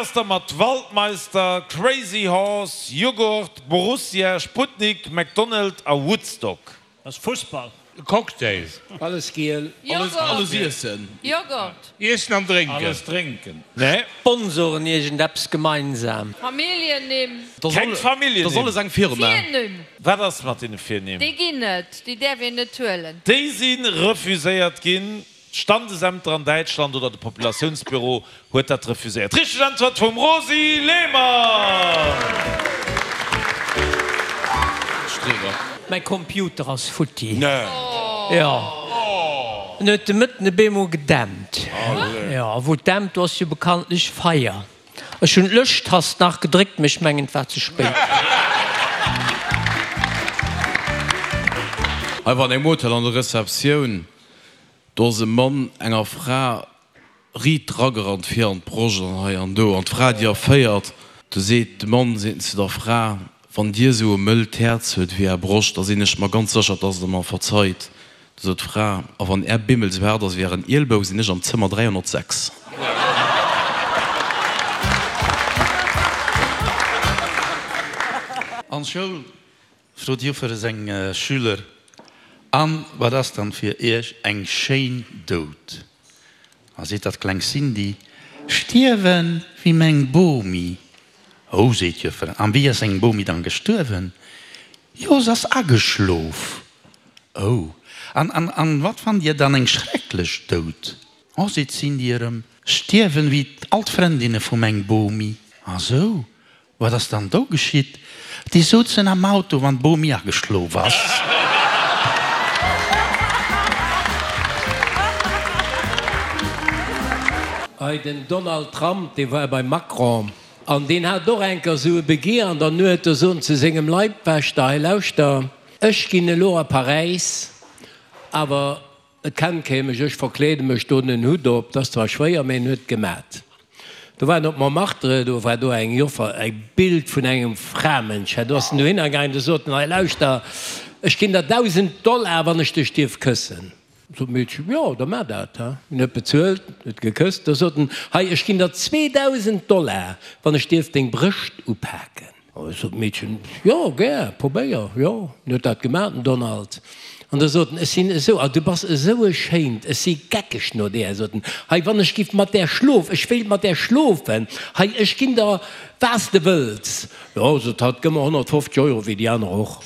ass da mat Waldmeister, Crazy Horse, Jughurt, Borussia, Sputnik, McDonald a Woodstock? Dat ass Fussball. Cocktail. Alles giel. Alles iessen. Joghurt. Iessen an drénken. Alles drénken. Nee. Sponsoren iergend eppes gemeinsam? Familljennimm. Keng Familljennimm. Dat ass alles eng Firma. Virnimm. Wat ass mat deene Virnimm? Déi ginn net. Déi däerf een net huelen. Déi si refuséiert ginn. D'Standesämter an Däitschland oder de Populatiounsbüro huet dat refuséiert. Richteg Äntwert vum Rosy Lehmann! Streber. Mäi Computer ass futti. Nee. Jo. En huet de Mëtten e beemol gedämpt. Jo, a wou et dämpt, do ass jo bekanntlech Feier. Ech hunn d'Löschtast nach gedréckt, mee ech mengen et war ze spéit. Hei war an engem Hotel an der Receptioun. Do ass e Mann enger Fra riit dragerannt vir an d'Broscht an hei an do an d'Fra déi erféiert. Du seet de Mann seet en zu der Fra, Wann Dir esou e mëllt Häerz huet wéi Är Broscht, da sinn ech mer ganz sécher, dass Der mer verzeit. Du sot d'Fra, A wann Är Bimmel esou haart ass wéi Ären Ielbou, sinn ech am Zëmmer 306. An d'Schoul Frot d'Joffer seng Schüler, An wat ass dann fir iech eng schéin Doud? A seet dat kleng Cindy, Stierwen wéi meng Bomi. Oh, seet d'Joffer, an wéi ass eng Bomi dann gestuerwen? Jo, s'ass ageschlof. Oh, an, an, an wat fannt dir dann eng schrecklech Doud? Oh, seet d'Cindy erëm, stierwen wéi all d'Frëndinne vu meng Bomi. A sou, Wat ass dann do geschitt? Déi souzen am Auto, wann d'Bomi ageschlof ass. Hei den Donald Trump, dee war beim Macron an deen hat och enker esou e Begier an der Nuet, do sot en zu sengem Leibwächter, hei lauschter, ech ginn elo a Paräis, awer Et kennt kee mech, ech verkleede mech, doen en Hutt op, 't ass zwar schwéier, mee en huet et gemat. Do war en op Montmartre, do war do eng Joffer, e Bild vun engem Framënsch, do ass en dohinner gaangen, do sot en, hei lauschter, ech ginn der 1.000 Dollar, wann ech dech dierf këssen. Sot d'Meedchen, jo, da maach dat. En huet bezuelt, huet gekësst, da sot en, hei, ech ginn der 2.000 Dollar, wann ech dierf deng Brëscht upaken. Sot d'Meedchen, Jo, gär, probéier, jo. En huet dat gemaach, den Donald. An da sot en, Ech sinn esou, ah, du bass esou e schéint, ech si geckeg no där. Sot en, Hei, wann ech giff mat där schlof, ech wéilt mat där schlofen, hei, ech ginn der, wat s de wëlls. Jo, sot hatt, gëmm mer 150 Euro, wéi déi aner och.